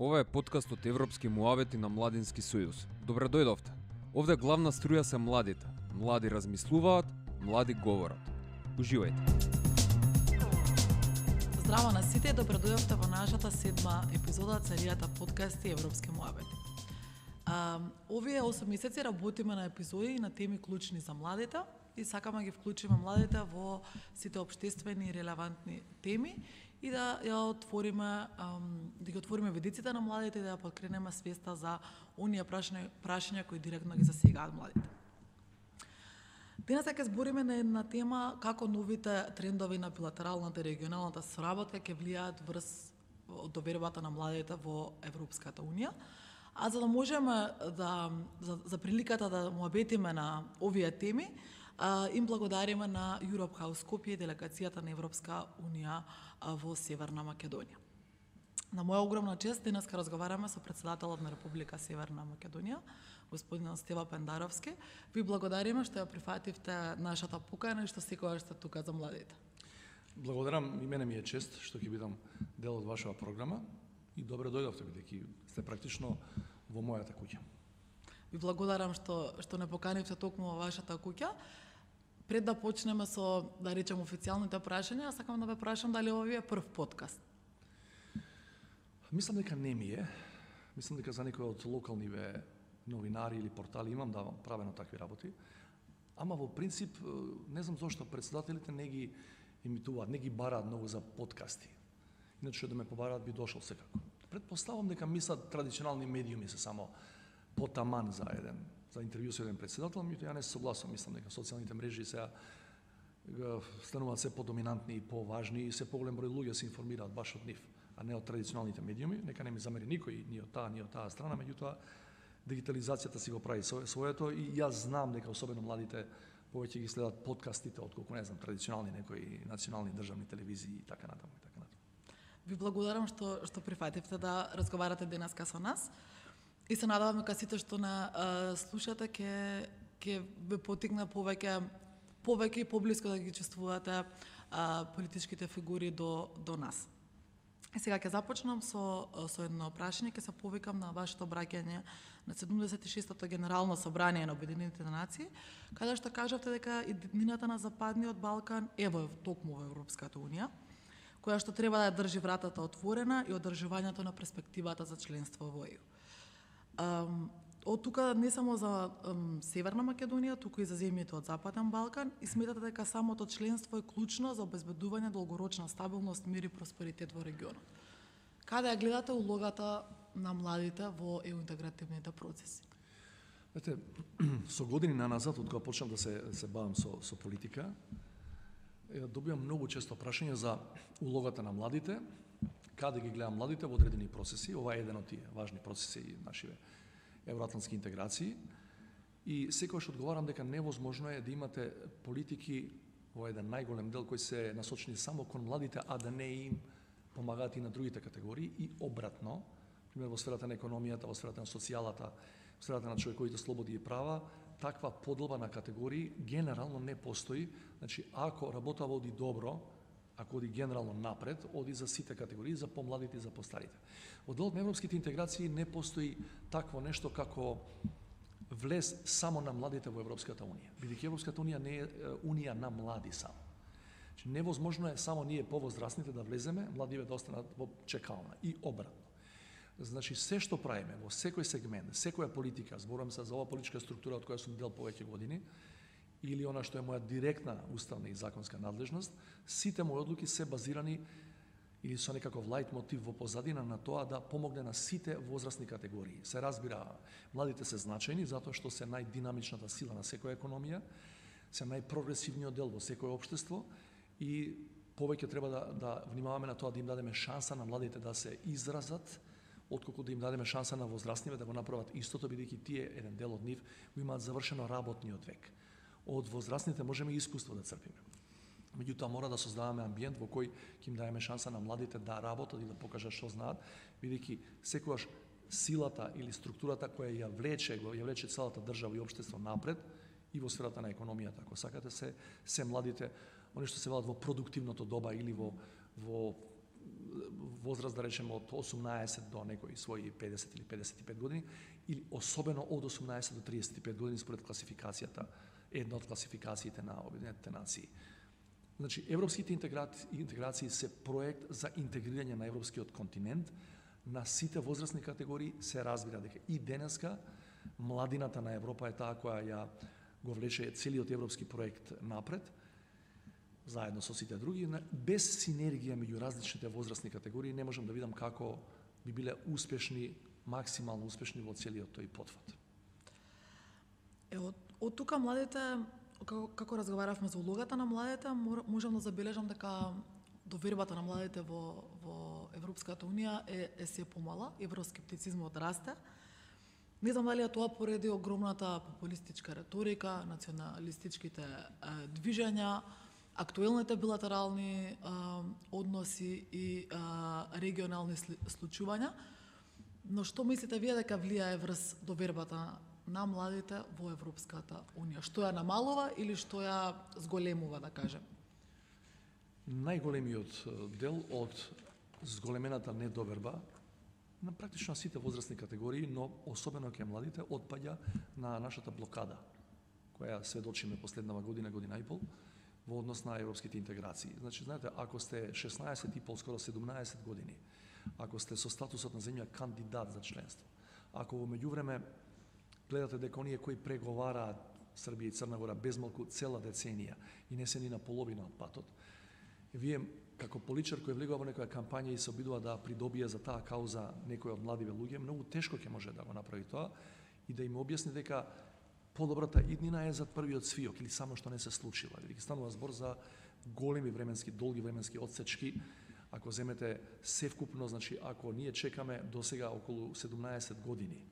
Ова е подкаст од Европски муавети на Младински сојуз. Добре дојдовте. Овде главна струја се младите. Млади размислуваат, млади говорат. Уживајте. Здраво на сите, добре дојдовте во нашата 7-ма епизода од серијата подкасти Европски муавети. Овие 8 месеци работиме на епизоди на теми клучни за младите и сакаме да ги вклучиме младите во сите општествени и релевантни теми и да ја отвориме, да ги отвориме видиците на младите и да ја подкренеме свеста за оние прашања кои директно ги засегаат младите. Денес ќе збориме на една тема како новите трендови на билатералната и регионалната соработка ќе влијаат врз довербата на младите во Европската унија. А за да можеме за приликата да муабетиме на овие теми, им благодариме на Europe House Skopje, делегацијата на Европска унија во Северна Македонија. На моја огромна чест денес ке разговараме со претседателот на Република Северна Македонија, господин Стева Пендаровски. Ви благодариме што ја прифативте нашата покана и што секогаш сте тука за младите. Благодарам, и мене ми е чест што ќе бидам дел од вашава програма и добре дојдовте бидејќи сте практично во мојата куќа. Ви благодарам што не поканивте токму во вашата куќа. Пред да почнеме со, да речем, официјалните прашања, сакам да ве прашам дали ова ви е прв подкаст. Мислам дека не ми е. Мислам дека за некои од локалниве новинари или портали имам да правено такви работи. Ама во принцип, не знам зошто претседателите не ги емитуваат, не ги бараат многу за подкасти. Иначе да ме побараат би дошол секако. Предпоставам дека мислат традиционални медиуми се само потаман за интервју со еден претседател, меѓутоа ја не се согласувам, мислам дека социјалните мрежи сега стануваат се подоминантни и поважни и се поголем број луѓе се информираат баш од нив, а не од традиционалните медиуми. Нека не ми замери никој, ни од таа страна, меѓутоа дигитализацијата си го прави своето и јас знам дека особено младите повеќе ги следат подкастите отколку не знам традиционални некои национални државни телевизии и така натаму и така натаму. Ви благодарам што прифативте да разговарате денеска со нас. И се надевам дека сите што не слушате ќе ве потикне повеќе и поблиско да ги чувствувате политичките фигури до нас. И сега ќе започнам со едно прашање, ќе се повикам на вашето обраќање на 76-тото Генерално собрание на Обединетите нации, каде што кажавте дека иднината на Западниот Балкан е токму во Европската унија, која што треба да ја држи вратата отворена и одржувањето на перспективата за членство во ЕУ. Од тука не само за Северна Македонија, туку и за земјите од Западен Балкан, и сметате дека самото членство е клучно за обезбедување долгорочна стабилност, мир и просперитет во регионот. Каде ја гледате улогата на младите во ЕУ интегративните процеси? Знаете, со години наназад, од кога почнав да се бавам со политика, добивам многу често прашања за улогата на младите, каде ги гледам младите во одредени процеси. Ова е еден од тие важни процеси нашиве евроатлантски интеграции. И секогаш одговарам дека невозможно е да имате политики во еден најголем дел кои се насочени само кон младите, а да не им помагаат и на другите категории и обратно, пример во сферата на економијата, во сферата на социјалата, во сферата на човековите слободи и права, таква поделба на категории генерално не постои. Значи, ако работа води добро, ако оди генерално напред, оди за сите категории, за помладите и за постарите. Во делот на европските интеграции не постои такво нешто како влез само на младите во Европската унија. Бидејќи Европската унија не е унија на млади само. Значи, невозможно е само ние повозрастните да влеземе, младиве да останат во чекална и обратно. Значи, се што правиме во секој сегмент, секоја политика, зборувам се за оваа политичка структура од која сум дел повеќе години, или она што е моја директна уставна и законска надлежност, сите мои одлуки се базирани или со некаков лајт мотив во позадина на тоа да помогне на сите возрастни категории. Се разбира, младите се значајни затоа што се најдинамичната сила на секоја економија, се најпрогресивниот дел во секое општество и повеќе треба да внимаваме на тоа да им дадеме шанса на младите да се изразат, отколку да им дадеме шанса на возрастниве да го направат истото, бидејќи тие, еден дел од нив, го имаат завршено работниот век. Од возрастните можеме и искуство да црпиме. Меѓутоа мора да создаваме амбиент во кој ќе им даеме шанса на младите да работат и да покажат што знаат, бидејќи секогаш силата или структурата која ја влече целата држава и општество напред и во сферата на економијата, ако сакате, се младите, они што се велат во продуктивното доба или во возраст, да речеме, од 18 до некои своји 50 или 55 години, или особено од 18 до 35 години според класификацијата, една од класификациите на Обединетите нации. Значи, европските интеграции се проект за интегрирање на европскиот континент на сите возрастни категории. Се разбира дека и денеска младината на Европа е таа која ја го влече целиот европски проект напред, заедно со сите други. Без синергија меѓу различните возрастни категории не можам да видам како би биле успешни, максимално успешни во целиот тој потфат. Од тука младите, како разговаравме за улогата на младите, можам да забележам дека довербата на младите во Европската Унија е се помала, евроскептицизмот расте. Не знам дали е тоа поради огромната популистичка реторика, националистичките движења, актуелните билатерални односи и регионални случувања. Но што мислите вие дека влијае врз довербата на младите во Европската Унија? Што ја намалува или што ја зголемува, да кажем? Најголемиот дел од зголемената недоверба на практично сите возрастни категории, но особено кај младите, отпаѓа на нашата блокада, која сведочиме последнава година, година и пол, во однос на европските интеграции. Значи, знаете, ако сте 16 и пол, скоро 17 години, ако сте со статусот на земја кандидат за членство, ако во меѓувреме гледате дека оние кои преговараат Србија и Црна Гора безмалку цела деценија и не се ни на половина од патот, вие како политичар кој влегува во некоја кампања и се обидува да придобие за таа кауза некој од младиве луѓе, многу тешко ќе може да го направи тоа и да им објасни дека подобрата иднина е зад првиот свиок или само што не се случила. Или станува збор за големи временски, долги временски отсечки. Ако земете севкупно, значи ако ние чекаме до сега околу 17 години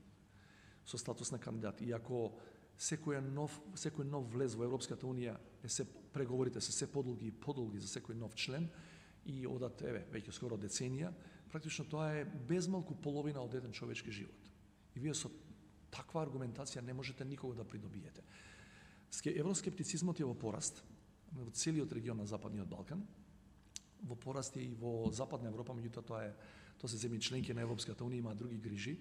со статус на кандидат и ако секој нов влез во Европската Унија преговорите се подолги и подолги за секој нов член и одат веќе скоро деценија, практично тоа е безмалку половина од еден човечки живот. И вие со таква аргументација не можете никого да придобиете. Евроскептицизмот е во пораст во целиот регион на Западниот Балкан, во пораст е и во Западна Европа, меѓутоа тоа се земји членки на Европската Унија, има други грижи,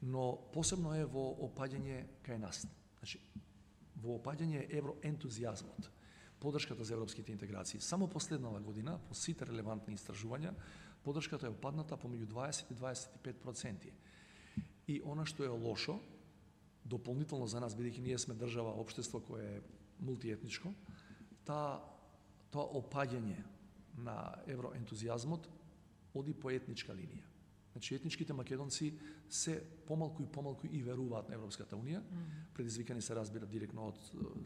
но посебно е во опаѓање кај нас. Значи, во опаѓање евроентузијазмот, поддршката за европските интеграции. Само последнава година, по сите релевантни истражувања, поддршката е опадната помеѓу 20 и 25%. И она што е лошо, дополнително за нас, бидејќи ние сме држава, општество кое е мултиетничко, тоа опаѓање на евроентузијазмот оди по етничка линија. Значи, етничките македонци се помалку и веруваат на Европската Унија, предизвикани се разбира директно од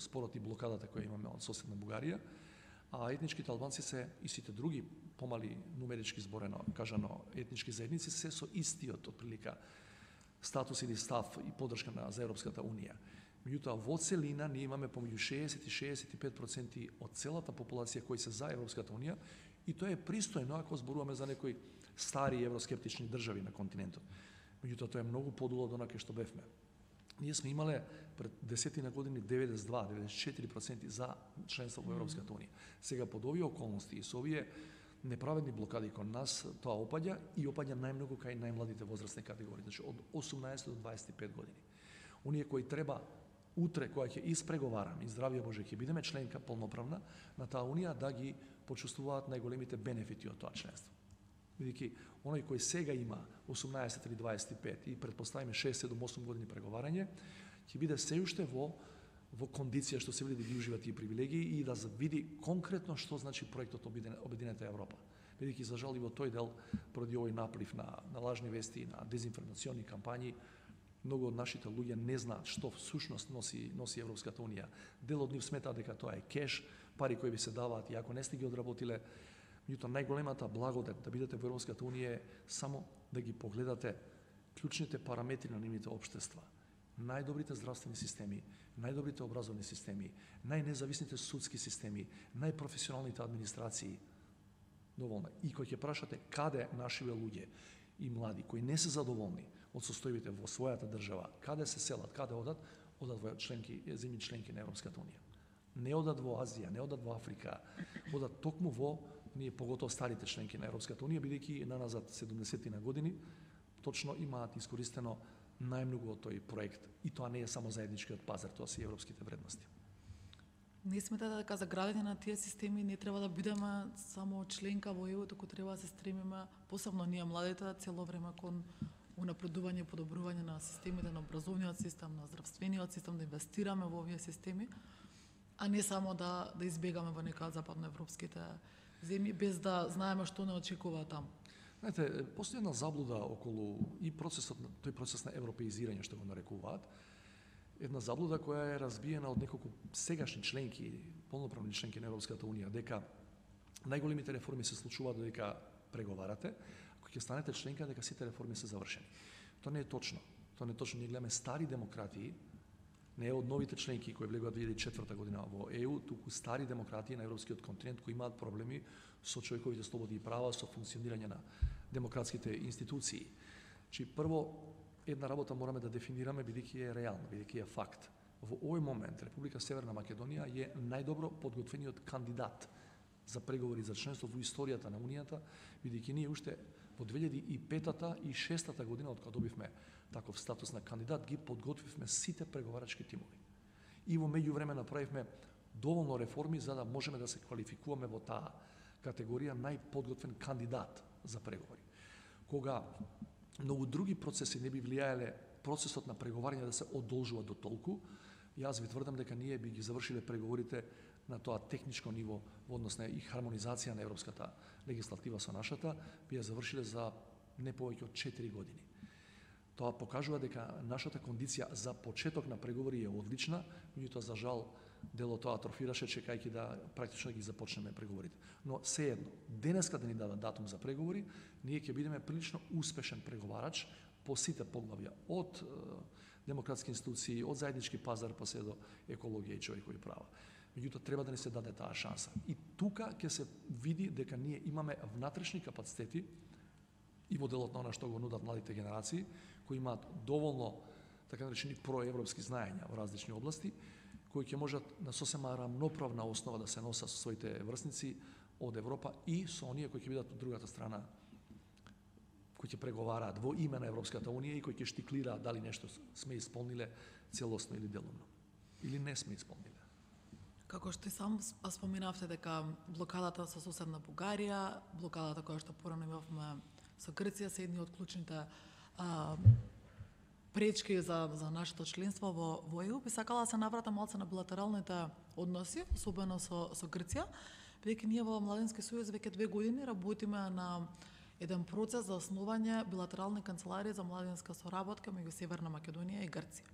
спорот и блокадата која имаме од соседна Бугарија, а етничките албанци се и сите други помали нумерички зборено кажано етнички заедници се со истиот отприлика статус или став и поддршка за Европската Унија. Меѓутоа, во целина ние имаме помеѓу 60 и 65% од целата популација кои се за Европската Унија и тоа е пристојно ако зборуваме за некои стари евроскептични држави на континентот. Меѓутоа, тоа е многу подолу од онака што бевме. Ние сме имале пред 10 години 92-94% за членство во Европската Унија. Сега под овие околности и со овие неправедни блокади кон нас, тоа опаѓа и опаѓа најмногу кај најмладите возрастни категории, значи од 18 до 25 години. Оние кои треба утре, која ќе испреговараме, и здравје Боже, ќе бидеме членка полноправна на таа Унија, да ги почувствуваат најголемите бенефити од тоа членство. Бидејќи оној кој сега има 18 или 25 и предпоставиме 6, 7, 8 години преговарање, ќе биде се уште во кондиција што се види да ги ужива тие привилегии и да види конкретно што значи проектот Обединета Европа. Бидејќи за жал и во тој дел, поради овој наплив на лажни вести, на дезинформациони кампањи, многу од нашите луѓе не знаат што всушност носи Европската Унија. Дел од нив сметаат дека тоа е кеш, пари кои ви се даваат и ако не сте ги одработиле, меѓутоа најголемата благодет да бидете во Европската Унија е само да ги погледате клучните параметри на нивните општества. Најдобрите здравствени системи, најдобрите образовни системи, најнезависните судски системи, најпрофесионалните администрации. Доволно. И кој ќе прашате каде нашиве луѓе и млади кои не се задоволни од состојбите во својата држава, каде се селат, каде одат во земји членки на Европската Унија. Не одат во Азија, не одат во Африка, одат токму во ние поготово старите членки на Европската унија, бидејќи наназад 70 на години, точно имаат искористено најмногу од тој проект. И тоа не е само заедничкиот пазар, тоа се и европските вредности. Не сметате дека за градење на тие системи не треба да бидеме само членка во ЕУ, туку треба да се стремиме, посебно ние младите, цело време кон унапредување и подобрување на системите, на образовниот систем, на здравствениот систем, да инвестираме во овие системи, а не само да избегаме во некоја западноевропските земји, без да знаеме што не очекува таму. Знаете, постои една заблуда околу и тој процес на европеизирање, што го нарекуваат, една заблуда која е разбиена од неколку сегашни членки, полноправни членки на Европската унија, дека најголемите реформи се случуваат додека преговарате, ако ќе станете членка дека сите реформи се завршени. Тоа не е точно. Тоа не е точно. Ние гледаме стари демократии, не е од новите членки кои влегуваат 2004 година во ЕУ, туку стари демократии на европскиот континент кои имаат проблеми со човековите слободи и права, со функционирање на демократските институции. Чи прво една работа мораме да дефинираме бидејќи е реална, бидејќи е факт. Во овој момент Република Северна Македонија е најдобро подготвениот кандидат за преговори за членство во историјата на Унијата, бидејќи ние уште во 2005-та и 2006-та година, од кога добивме таков статус на кандидат, ги подготвивме сите преговарачки тимови. И во меѓувреме направивме доволно реформи за да можеме да се квалификуваме во таа категорија најподготвен кандидат за преговори. Кога многу други процеси не би влијаеле процесот на преговарање да се одолжува до толку, јас ви тврдам дека ние би ги завршиле преговорите на тоа техничко ниво во однос на и хармонизација на европската легислатива со нашата, би ја завршиле за не повеќе од 4 години. Тоа покажува дека нашата кондиција за почеток на преговори е одлична, меѓутоа за жал дел од тоа атрофираше чекајќи да практично ги започнеме преговорите. Но сеедно, денеска да ни дадат датум за преговори, ние ќе бидеме прилично успешен преговарач по сите поглавја, од демократски институции, од заеднички пазар па се до екологија и човекови права. Меѓутоа треба да ни се даде таа шанса. И тука ќе се види дека ние имаме внатрешни капацитети и во делот на она што го нудат младите генерации, кои имаат доволно така наречени проевропски знаења во различни области, кои ќе можат на сосема рамноправна основа да се носат со своите врсници од Европа и со оние кои ќе бидат од другата страна, кои ќе преговараат во име на Европската унија и кои ќе штиклираат дали нешто сме исполниле целосно или делумно, или не сме исполниле. Како што и сам споменавте дека блокадата со соседна Бугарија, блокадата која што порано имавме со Грција се едни од клучните пречки за нашето членство во ЕУ, би сакала да се навратам малце на билатералните односи, особено со Грција, бидејќи ние во Младински сојуз веќе 2 години работиме на еден процес за основање билатерални канцеларии за младинска соработка меѓу Северна Македонија и Грција.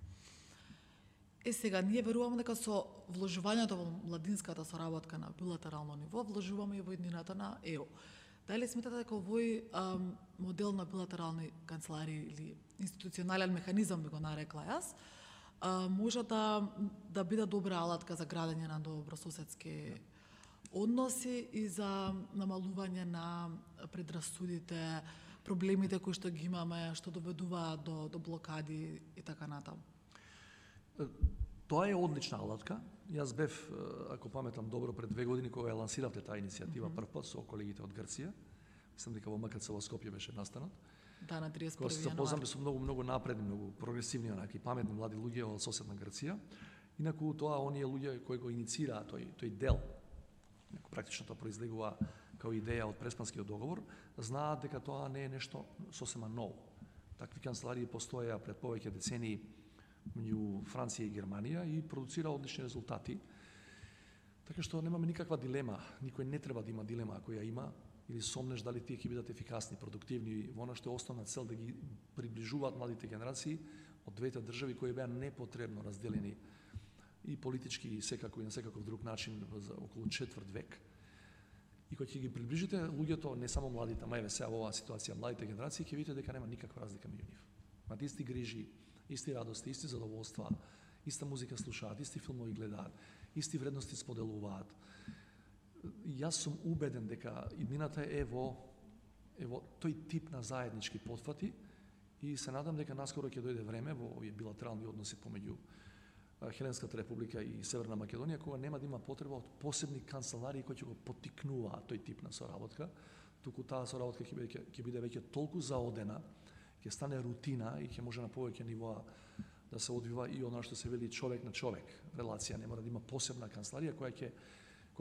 Сега, ние веруваме дека со вложувањето во младинската соработка на билатерално ниво, вложуваме и во еднината на ЕУ. Дали сметате дека овој модел на билатерални канцеларии или институционален механизам, би го нарекла јас, може да биде добра алатка за градење на добрососедски односи и за намалување на предрасудите, проблемите кои што ги имаме, што доведуваат до блокади и така натаму? Тоа е одлична алатка. Јас бев, ако паметам добро, пред 2 години кога ја лансиравте таа иницијатива прв пат со колегите од Грција. Мислам дека во МКЦ во Скопје беше настанот. Да, на 31 Кога се запознавме со многу напредни, многу прогресивни, онаки паметни млади луѓе од соседна Грција. Инаку тоа оние луѓе кои го инициираа тој дел, практично тоа произлегува као идеја од Преспанскиот договор, знаат дека тоа не е нешто сосема ново. Такви канцеларии постоеа пред повеќе децении меѓу Франција и Германија и продуцира одлични резултати. Така што немаме никаква дилема, никој не треба да има дилема ако ја има или сомнеш дали тие ќе бидат ефикасни, продуктивни во она што е основна цел да ги приближуваат младите генерации од двете држави кои беа непотребно разделени и политички и секако и на секаков друг начин за околу четврт век. И кога ќе ги приближите луѓето, не само младите, ама еве сега во оваа ситуација младите генерации, ќе видите дека нема никаква разлика меѓу нив. Имаат исти грижи, исти радости, исти задоволства, иста музика слушаат, исти филмови гледаат, исти вредности споделуваат. Јас сум убеден дека иднината е во тој тип на заеднички потфати и се надам дека наскоро ќе дојде време во овие билатерални односи помеѓу Хеленската република и Северна Македонија, кога нема да има потреба од посебни канцеларии кои ќе го поттикнуваат тој тип на соработка, туку таа соработка ќе биде веќе толку заодена, ќе стане рутина и ќе може на повеќе нивоа да се одвива и она што се вели човек на човек релација, не мора да има посебна канцеларија која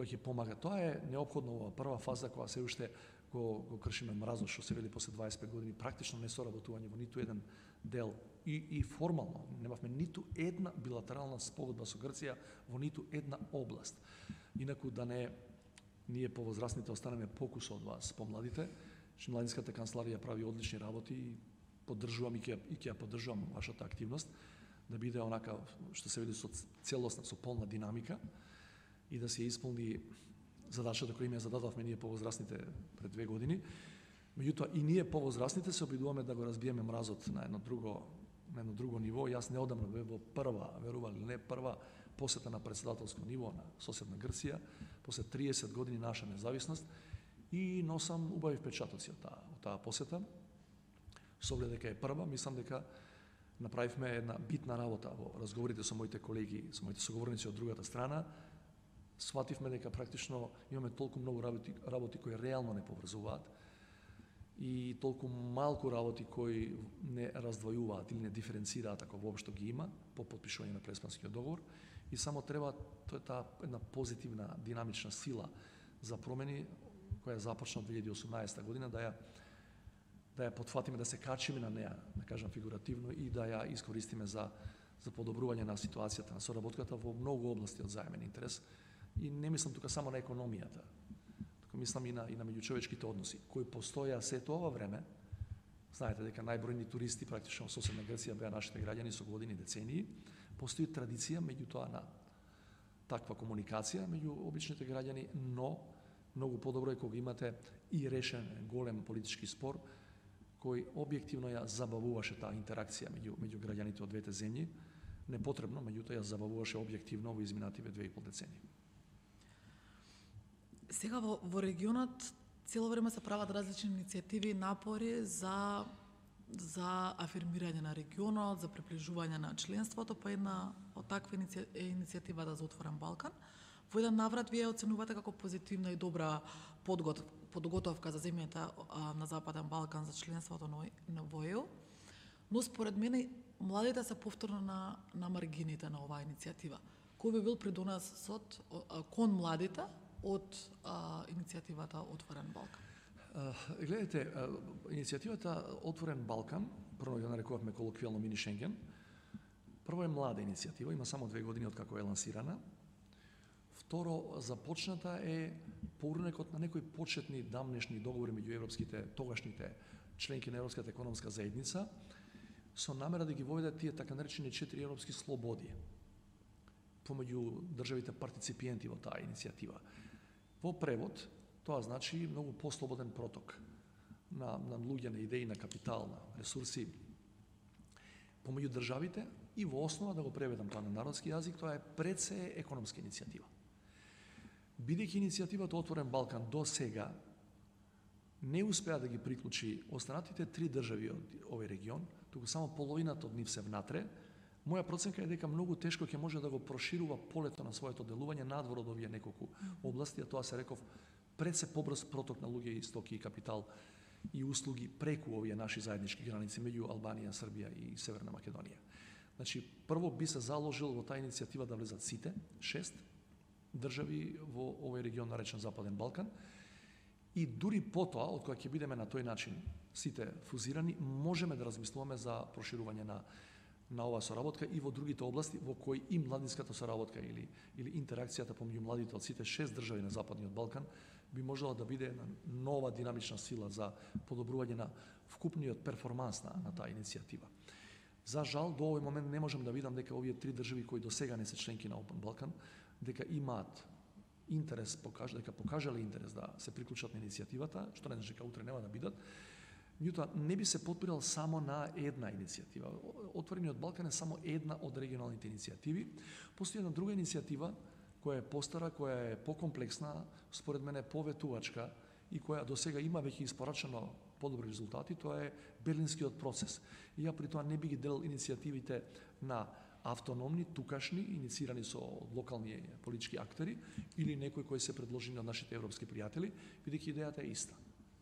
ќе помага. Тоа е неопходно во прва фаза кога се уште го кршиме мразот, што се вели после 25 години, практично не соработување во ниту еден дел и формално. Немавме ниту една билатерална спогодба со Грција во ниту една област. Инаку да не ние повозрастните останеме покус од вас, помладите, што младинската канцеларија прави одлични работи и поддржувам и ќе ја поддржувам вашата активност, да биде онака што се види со целосна, со полна динамика и да се исполни задачата која им ја зададовме ние повозрастните пред 2 години. Меѓутоа и ние повозрастните се обидуваме да го разбиеме мразот на едно друго ниво. Јас неодамна бев во прва, верували или не, прва посета на претседателско ниво на соседна Грција, после 30 години наша независност, и носам убави впечатоци од таа посета. Со оглед дека е прва, мислам дека направивме една битна работа во разговорите со моите колеги, со моите соговорници од другата страна. Свативме дека практично имаме толку многу работи кои реално не поврзуваат и толку малку работи кои не раздвојуваат или не диференцираат, ако воопшто ги има, по потпишување на Преспанскиот договор, и само треба таа една позитивна динамична сила за промени која започна од 2018 година да ја потфатиме, да се качиме на неа, да кажам фигуративно, и да ја искористиме за подобрување на ситуацијата, на соработката во многу области од заемен интерес. И не мислам тука само на економијата, тука мислам и на меѓучовечките односи, кои постоја сето ова време. Знаете дека најбројни туристи практично во соседна Грција беа нашите граѓани со години, децении. Постои традиција меѓутоа на таква комуникација меѓу обичните граѓани, но многу подобро е кога имате и решен голем политички спор кој објективно ја забавуваше таа интеракција меѓу граѓаните од двете земји. Непотребно, меѓутоа ја забавуваше објективно во изминативе 2,5 децении. Сега во регионот цело време се прават различни иницијативи и напори за афирмирање на регионот, за приближување на членството, па една од таква е иницијативата за Отворен Балкан. Во еден наврат вие оценувате како позитивна и добра подготовка за земјата на Западен Балкан за членството во ЕУ, но според мене младите се повторно на маргините на оваа иницијатива. Кој би бил придонесот кон младите од иницијативата Отворен Балкан? Гледайте, иницијативата Отворен Балкан, прво ја нарекувавме колоквијално мини Шенген, прво е млада иницијатива, има само 2 години од како е лансирана. Второ, започната е по урнекот на некои почетни дамнешни договори меѓу тогашните членки на Европската економска заедница, со намера да ги воведат тие така наречени 4 европски слободи помеѓу државите партиципиенти во таа иницијатива. Во превод, тоа значи многу послободен проток на луѓе, на идеи, на капитал, на ресурси помеѓу државите, и во основа, да го преведам тоа на народски јазик, тоа е пред се економска иницијатива. Бидејќи иницијативата Отворен Балкан до сега не успеа да ги приклучи останатите 3 држави од овој регион, туку само половината од нив се внатре, моја проценка е дека многу тешко ќе може да го проширува полето на своето делување надвор од овие неколку области, а тоа се реков пред се побрз проток на луѓе и стоки и капитал и услуги преку овие наши заеднички граници меѓу Албанија, Србија и Северна Македонија. Значи, прво би се заложил во таа иницијатива да влезат сите 6 држави во овој регион наречен Западен Балкан, и дури потоа, од кога ќе бидеме на тој начин сите фузирани, можеме да размислуваме за проширување на оваа соработка и во другите области во кои и младинската соработка или интеракцијата помеѓу младите од сите 6 држави на Западниот Балкан би можела да биде една нова динамична сила за подобрување на вкупниот перформанс на таа иницијатива. За жал, до овој момент не можам да видам дека овие 3 држави кои до сега не се членки на Open Balkan, дека имаат интерес, дека покажале интерес да се приклучат на иницијативата, што не значи дека утре нема да бидат. Меѓутоа, не би се подпирал само на една иницијатива. Отворениот Балкан е само една од регионалните иницијативи. Постои една друга иницијатива која е постара, која е покомплексна, според мене поветувачка и која до сега има веќе испорачено подобри резултати, тоа е Берлинскиот процес. И ја при тоа не би ги делил иницијативите на автономни, тукашни, иницирани со локални политички актери или некои кои се предложени од нашите европски пријатели, бидејќи идејата е иста.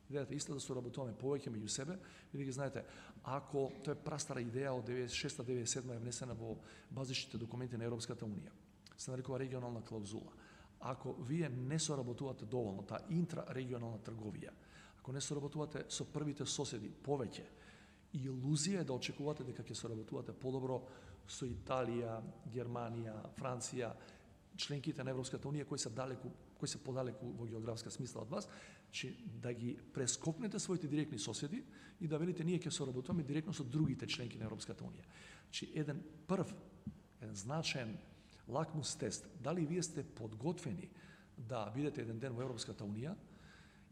Идејата е иста да соработуваме повеќе меѓу себе, бидејќи знаете, ако тоа е прастара идеја од 96-97 е внесена во базичните документи на Европската унија, се нарекува регионална клаузула. Ако вие не соработувате доволно, таа интрарегионална трговија, ако не соработувате со првите соседи повеќе, илузија е да очекувате дека ќе соработувате подобро со Италија, Германија, Франција, членките на Европската унија кои се подалеку во географска смисла од вас, че да ги прескокнете своите директни соседи и да велите ние ќе соработуваме директно со другите членки на Европската унија. Че еден значаен лакмус тест, дали вие сте подготвени да бидете еден ден во Европската унија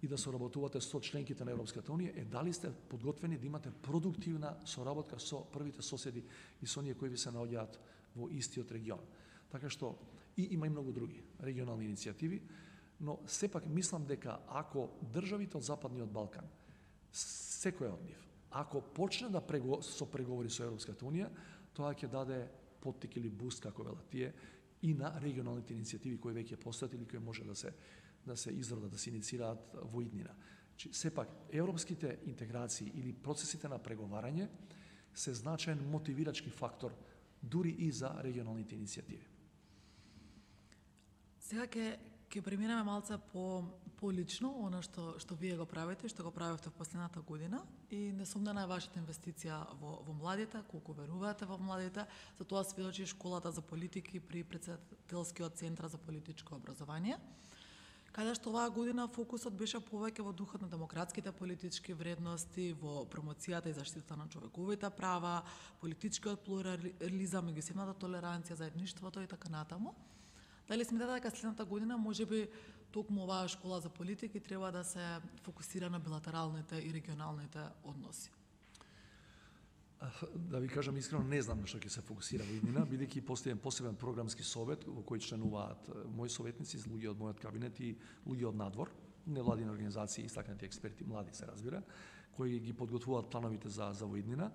и да соработувате со членките на Европската унија, дали сте подготвени да имате продуктивна соработка со првите соседи и со оние кои ви се наоѓаат во истиот регион. Така што има и многу други регионални иницијативи, но сепак мислам дека ако државите од Западниот Балкан, секој од нив, ако почне да со преговори со Европската унија, тоа ќе даде поттик или буст, како велат тие, и на регионалните иницијативи кои веќе постојат или кои може да се изродат, да се иницираат во иднина. Сепак, европските интеграции или процесите на преговарање се значаен мотивирачки фактор дури и за регионалните иницијативи. Сега ќе преминеме малце по лично, она што вие го правите, што го правите в последната година и несомнена е вашата инвестиција во младите, колку верувате во младите, за тоа сведочи школата за политики при Претседателскиот центар за политичко образование, каде што оваа година фокусот беше повеќе во духот на демократските политички вредности, во промоцијата и заштитата на човековите права, политичкиот плурализам, меѓусебната толеранција, заедништвото и така натаму. Дали сметате дека следната година можеби токму оваа школа за политики треба да се фокусира на билатералните и регионалните односи? Да ви кажам искрено, не знам на што ќе се фокусира во иднина, бидејќи постои посебен програмски совет во кој членуваат мои советници, луѓе од мојот кабинет и луѓе од надвор, невладини организации, истакнати експерти, млади се разбира, кои ги подготвуваат плановите за во иднина.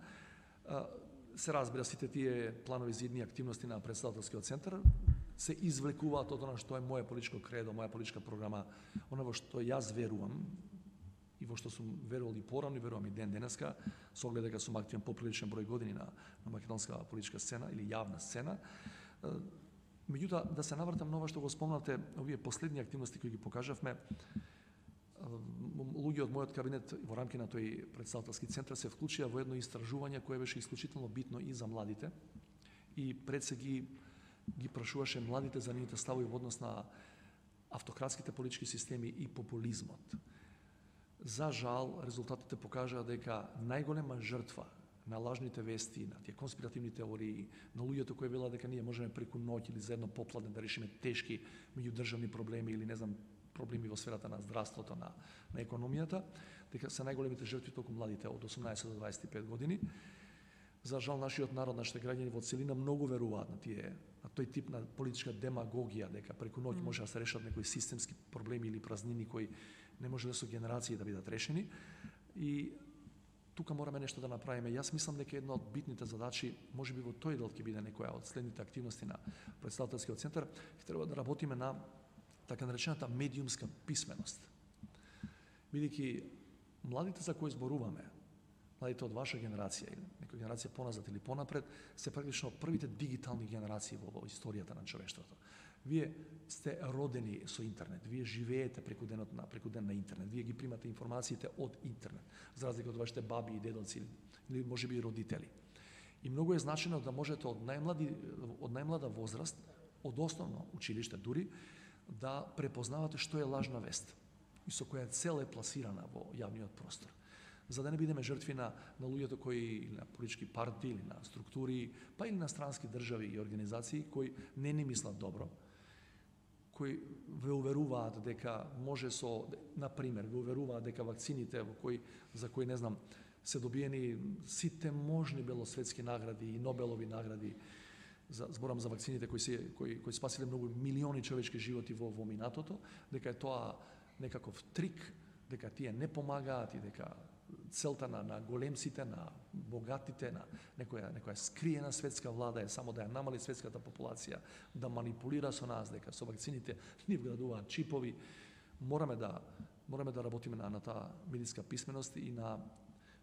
Се разбира, сите тие планови за идни активности на Претседателскиот центар се извлекуваат од она што е моја политичко кредо, моја политичка програма, она во што јас верувам и во што сум верувал и порано и верувам и денеска, со оглед дека сум активен поприличен број години на македонска политичка сцена или јавна сцена. Меѓутоа, да се навратам на ова што го спомнате, овие последни активности кои ги покажавме, луѓе од мојот кабинет во рамки на тој Претседателски центар се вклучија во едно истражување кое беше исклучително битно и за младите и пред се ги прашуваше младите за нивните ставови во однос на автократските политички системи и популизмот. За жал, резултатите покажаа дека најголема жртва на лажните вести, на тие конспиративни теории, на луѓето кои велат дека ние можеме преку ноќ или за едно попладне да решиме тешки меѓудржавни проблеми или не знам проблеми во сферата на здравството, на економијата, дека се најголемите жртви толку младите од 18 до 25 години. За жал, нашиот народ, нашите граѓани во целина многу веруваат на тој тип на политичка демагогија, дека преку ноќ може да се решат некои системски проблеми или празнини кои не може да со генерации да бидат решени. И тука мораме нешто да направиме. Јас мислам дека една од битните задачи, можеби во тој дел ќе биде некоја од следните активности на Претседателскиот центар, ќе треба да работиме на така наречената медиумска писменост. Бидејќи младите за кои зборуваме, младите од ваша генерација или некоја генерација поназад или понапред, се практично првите дигитални генерации во историјата на човештвото. Вие сте родени со интернет, вие живеете преку ден на интернет, вие ги примате информациите од интернет, за разлика од вашите баби и дедоци или можеби и родители. И многу е значено да можете од најмлада возраст, од основно училиште дури, да препознавате што е лажна вест и со која цел е пласирана во јавниот простор. За да не бидеме жртви на луѓето кои, или на политички партии, или на структури, па или на странски држави и организации кои не ни мислат добро, кои ве уверуваат дека може например, ве уверуваат дека вакцините за кои не знам, се добиени сите можни белосветски награди и Нобелови награди, зборам за вакцините кои спасиле многу милиони човечки животи во минатото, дека е тоа некаков трик дека тие не помагаат и дека целта на големците, на богатите, на некоја скриена светска влада е само да ја намали светската популација, да манипулира со нас, дека со вакцините ни вградуваат чипови. Мораме да работиме на таа медиска писменост и на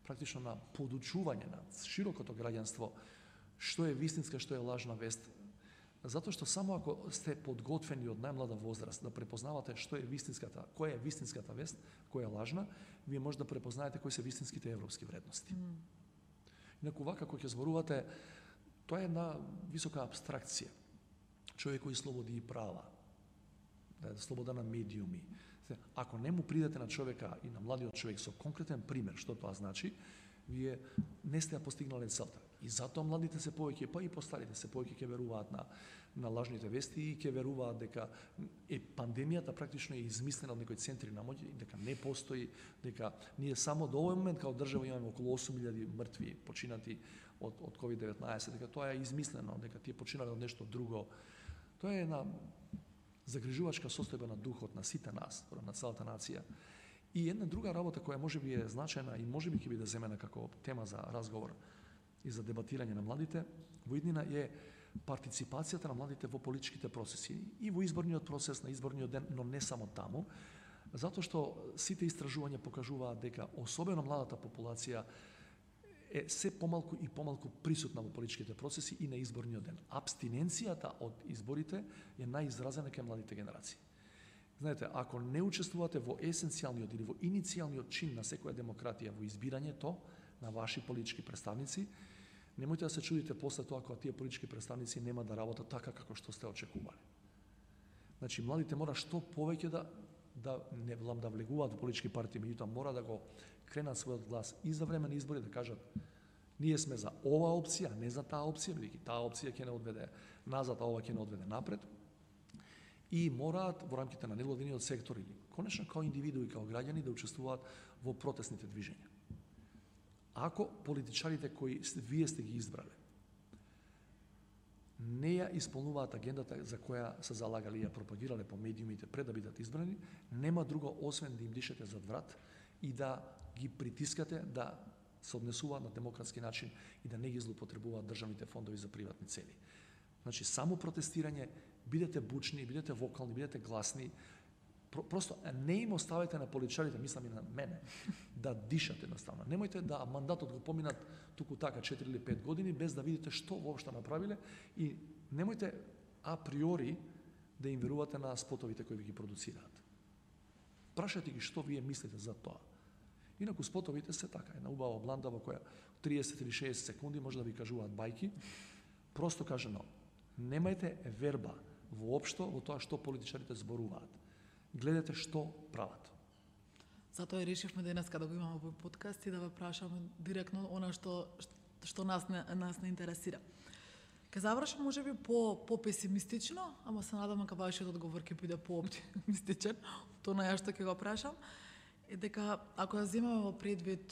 практично на подучување на широкото граѓанство што е вистинска, што е лажна вест. Затоа што само ако сте подготвени од најмлада возраст да препознавате што е вистинската, која е вистинската вест, која е лажна, вие може да препознаете кои се вистинските европски вредности. Инаку вака кога ќе зборувате, тоа е една висока абстракција. Човекови слободи и права, слобода на медиуми. Ако не му придете на човека и на младиот човек со конкретен пример што тоа значи, вие не сте ја постигнале целта. И затоа младите се повеќе, па и постарите се повеќе ќе веруваат на лажните вести и ќе веруваат дека пандемијата практично е измислена од некои центри на моќ, дека не постои, дека ние само до овој момент као држава имаме околу 8.000 мртви починати од COVID-19, дека тоа е измислено, дека тие починале од нешто друго. Тоа е една загрижувачка состојба на духот на сите нас, на целата нација. И една друга работа која можеби е значајна и можеби ќе биде земена како тема за разговор и за дебатирање на младите во иднина е партиципацијата на младите во политичките процеси и во изборниот процес, на изборниот ден, но не само таму, затоа што сите истражувања покажуваат дека особено младата популација е се помалку и помалку присутна во политичките процеси и на изборниот ден. Абстиненцијата од изборите е најизразена кај младите генерации. Знаете, ако не учествувате во есенцијалниот или во иницијалниот чин на секоја демократија во избирањето на ваши политички представници, немојте да се чудите после тоа кога тие политички представници нема да работат така како што сте очекувале. Значи, младите мора што повеќе да не да влегуваат во политички партии, меѓутоа мора да го кренат својот глас и за време на избори, да кажат ние сме за оваа опција, не за таа опција, бидејќи таа опција ќе не одведе назад, а ова ќе не одведе напред. И мораат во рамките на невладиниот сектор или конечно као индивидуи, као граѓани да учествуваат во протестните движења. Ако политичарите кои вие сте ги избрале не ја исполнуваат агендата за која се залагали и ја пропагирале по медиумите пред да бидат избрани, нема друго освен да им дишете зад врат и да ги притискате да се однесуваат на демократски начин и да не ги злоупотребуваат државните фондови за приватни цели. Значи, само протестирање, бидете бучни, бидете вокални, бидете гласни, просто не им оставете на политичарите, мислам и на мене, да дишат едноставно. Немојте да мандатот го поминат туку така 4 или 5 години без да видите што воопшто направиле и немојте априори да им верувате на спотовите кои ви ги продуцираат. Прашајте ги што вие мислите за тоа. Инаку спотовите се така, една убава бланда во која 30 или 60 секунди може да ви кажуваат бајки. Просто кажано, немајте верба воопшто во тоа што политичарите зборуваат. Гледате што прават. Затоа и решивме денеска да го имаме во подкаст и да ве прашаме директно она што нас не интересира. Ке завршам можеби по песимистично, ама се надам дека вашиот одговор ќе биде по-оптимистичен, тоа на ја што ќе го прашам. Е дека ако ја земеме во предвид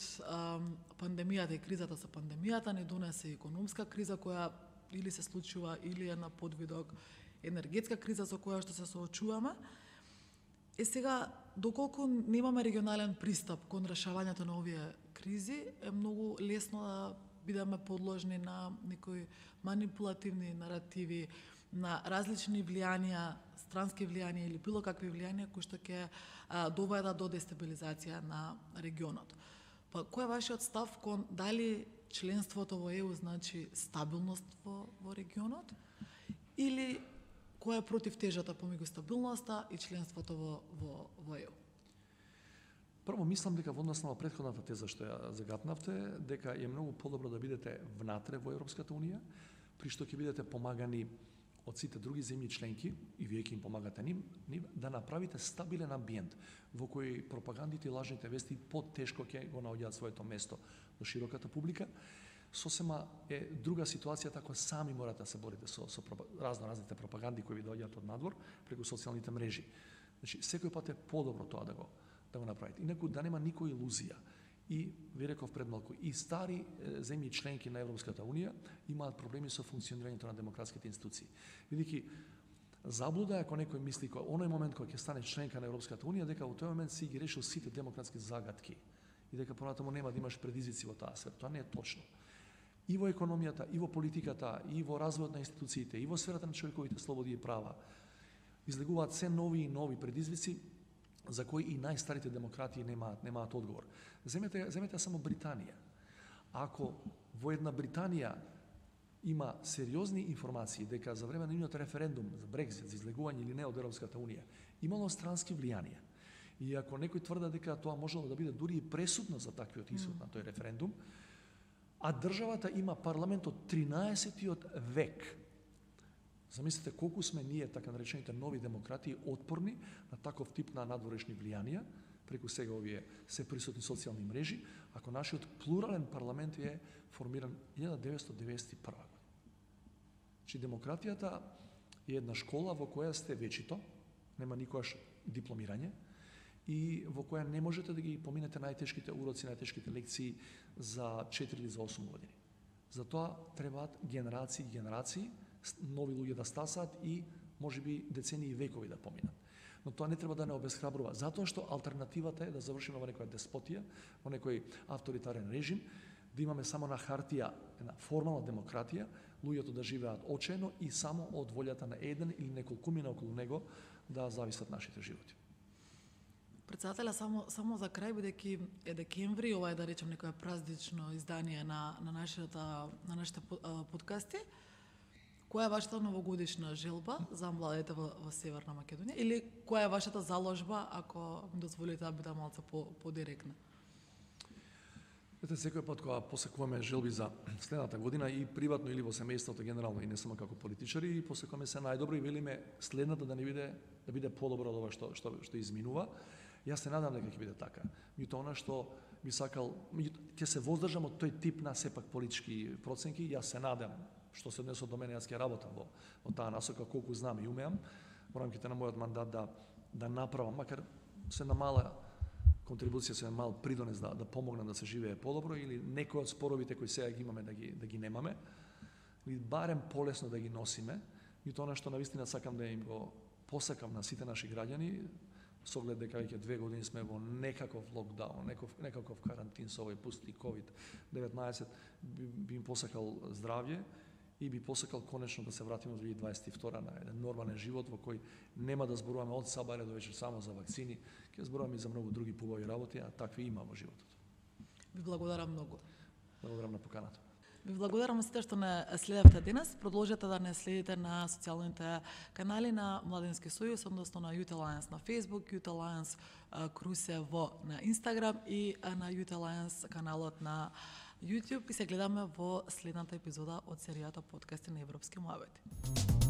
пандемијата и кризата со пандемијата, не донесе економска криза која или се случува или е на подвидок енергетска криза со која што се соочуваме. Сега, доколку немаме регионален пристап кон решавањето на овие кризи, е многу лесно да бидеме подложни на некои манипулативни наративи, на различни влијанија, странски влијанија или било какви влијанија кои што ќе доведат до дестабилизација на регионот. Па кој е вашиот став кон дали членството во ЕУ значи стабилност во регионот или која е против тежата помеѓу стабилноста и членството во ЕУ? Прво, мислам дека во однос на претходната теза што ја загатнавте, дека е многу подобро да бидете внатре во Европската Унија, при што ќе бидете помагани од сите други земји членки, и вие ќе им помагате нив, да направите стабилен амбиент во кој пропагандите и лажните вести потешко ќе го наоѓаат своето место до широката публика. Сосема е друга ситуација ако сами морате да се борите со разните пропаганди кои ви доаѓаат од надвор преку социјалните мрежи. Значи, секој пат е подобро тоа да го направите. Инаку да нема никоја илузија. И ви реков пред малку, и стари земји членки на Европската Унија имаат проблеми со функционирањето на демократските институции. Бидејќи Заблуда е ако некој мисли кој оној момент кога ќе стане членка на Европската унија дека во тој момент си ги решил сите демократски загадки и дека понатаму нема да имаш предизвици во таа сфера. Тоа не е точно. И во економијата, и во политиката, и во развојот на институциите, и во сферата на човековите слободи и права излегуваат се нови и нови предизвици за кои и најстарите демократии немаат одговор. Земете само Британија. Ако во една Британија има сериозни информации дека за време на нивниот референдум за Брекзит, за излегување или не од Европската унија, имало странски влијанија. И ако некој тврда дека тоа можело да биде дури и пресудно за таквиот исход на тој референдум, а државата има парламент од 13-тиот век. Замислете колку сме ние, така наречените нови демократии, отпорни на таков тип на надворешни влијанија, преку сега овие се присутни социјални мрежи, ако нашиот плурален парламент е формиран 1991 година. Чи демократијата е една школа во која сте вечито, нема никогаш дипломирање, и во која не можете да ги поминете најтешките уроци, најтешките лекции за 4 или за 8 години. Затоа требаат генерации и генерации, нови луѓе да стасаат и можеби децении и векови да поминат. Но тоа не треба да не обесхрабрува, затоа што алтернативата е да завршиме во некоја деспотија, во некој авторитарен режим, да имаме само на хартија една формална демократија, луѓето да живеат очено и само од волјата на еден или неколкумина околу него да зависат нашите животи. Председателя, само за крај, бидејќи е декември, ова е да речем некоја празнично издание на нашите подкасти. Која е вашата новогодишна желба за младите во Северна Македонија? Или која е вашата заложба, ако ми дозволите да бидам малку подиректна? Секој пат кога посекуваме желби за следната година и приватно или во семејството генерално и не само како политичари, и посекуваме се најдобро и велиме следната да биде подобро од ова што изминува. Јас се надам дека ќе биде така. Меѓутоа она што би сакал, ќе се воздржам од тој тип на сепак политички проценки. Јас се надам, што се однесува до мене, јас ќе работам во таа насока колку знам и умеам во рамките на мојот мандат да направам, макар се на мала контрибуција, се мал придонес да помогнам да се живее подобро или некои од споровите кои сега ги имаме да ги немаме, или барем полесно да ги носиме. И тоа што навистина сакам да им го посакам на сите наши граѓани, со оглед дека веќе 2 години сме во некаков локдаун, некаков карантин со овој пусти COVID-19, би им посакал здравје и би посакал конечно да се вратиме во 2022 на еден нормален живот во кој нема да зборуваме од сабаре до вечер само за вакцини, ќе зборуваме и за многу други побави работи, а такви има во животот. Ви благодарам многу. Благодарам на поканата. Ви благодарам сите што не следевте денес. Продолжете да не следите на социјалните канали на Младински сојуз, односно на Youth Alliance на Facebook, Youth Alliance Крусево на Instagram и на Youth Alliance каналот на YouTube и се гледаме во следната епизода од серијата подкасти на Европски муабети.